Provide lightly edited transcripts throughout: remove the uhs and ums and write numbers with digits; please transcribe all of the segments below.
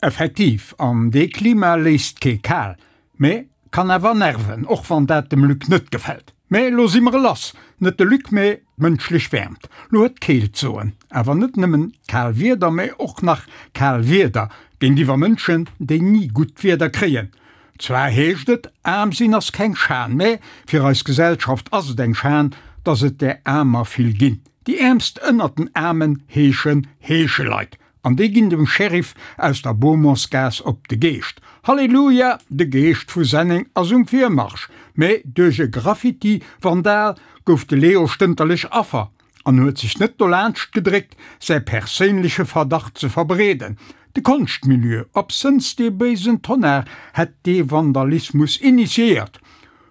Effektiv, an dee Klima léisst kee kal, mä kann awer nerven, och wann dat dem Luc net gefält. Mä lo si mer lass, net de Luc, mä d'mënschlech Wäermt. Lo huet d'Keelt soen, awer net nëmmen kal Wieder, mä och nach kal Wieder géintiwwer Mënschen, déi ni gutt Wieder kréien. Zwar heescht et, aarm sinn ass keng Schan, mä fir eis Gesellschaft ass et eng Schan, dass et där Aarmer vill ginn. Déi Äermst ënnert den Aarmen heeschen Heescheleit. An déi ginn dem Sheriff aus der Beaumontsgaass op de Geescht. Halleluja, de Geescht vu Senneng ass um Virmarsch! Mä duerch e Graffiti-Vandal gouf de Leo stënterlech Affer an huet sech net dolaanscht gedréckt, säi perséinleche Verdacht ze verbreeden. De Konschtmilieu, absënns dee béisen Tonnar, hätt dee Vandalismus initiéiert.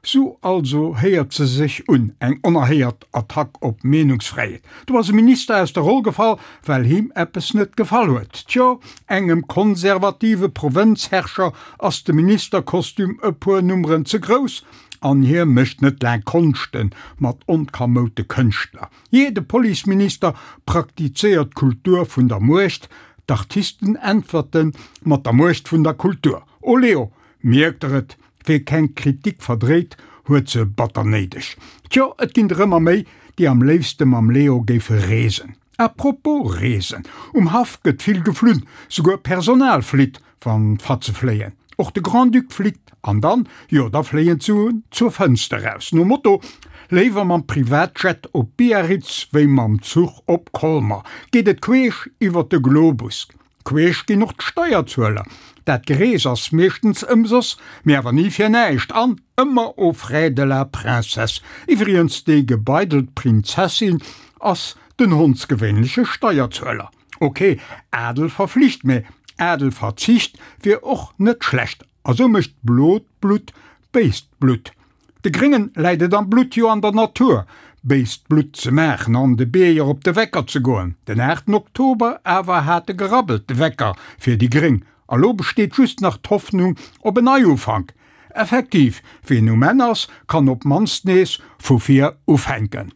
Sou also héiert se sech un, eng onerhéiert Attack op d'Meenungsfräiheet. Do ass e Minister aus der Roll gefall, well him eppes net gefall huet. Tjo, engem konservative Provënzherrscher ass de Ministerkostüm e puer Nummeren ze grouss an hie mécht net laang Konschte mat onkamoute Kënschtler. Jee, de Policeminister praktizéiert d'Kultur vun der Muecht, d'Artisten äntwerte mat der Muecht vun der Kultur. Oleo, mierkt der et, Wee keng Kritik verdréit, huet se batter néideg. Tjo, et ginn der ëmmer méi, déi am léifste mam Leo géife reesen. A propos reesen, um Haff gëtt vill geflunn, souguer Personal flitt, wann d'Fatze fléien. Och de Grand-Duc flitt, an dann, jo da fléien d'Suen zur Fënster raus. Nom Motto, Léiwer mam Privatjet op Biarritz wéi mam Zuch op Colmer, geet et queesch iwwer de Globus. Queesch ginn och d'Steierzueler. Dat Gerees ass meeschtens ëmsoss, mee awer ni fir näischt an ëmmer aux frais de la princesse. Iwwrigens, déi gebeidelt Prinzessin ass den hondsgewéinleche Steierzueler. Ok, Adel verflicht, mee Adelverzicht wier och net schlecht. A sou mécht blot Blutt béist Blutt. De Gréngen läit et am Blutt, jo an der Natur, béist Blutt ze maachen an de Bierger op de Wecker ze goen. Den 8 Oktober awer hat e gerabbelt, de Wecker fir déi Gréng. A lo besteet just nach d'Hoffnung op en Neiufank. Effektiv, wien um Enn ass, kann op mannst nees vu vir ufänken.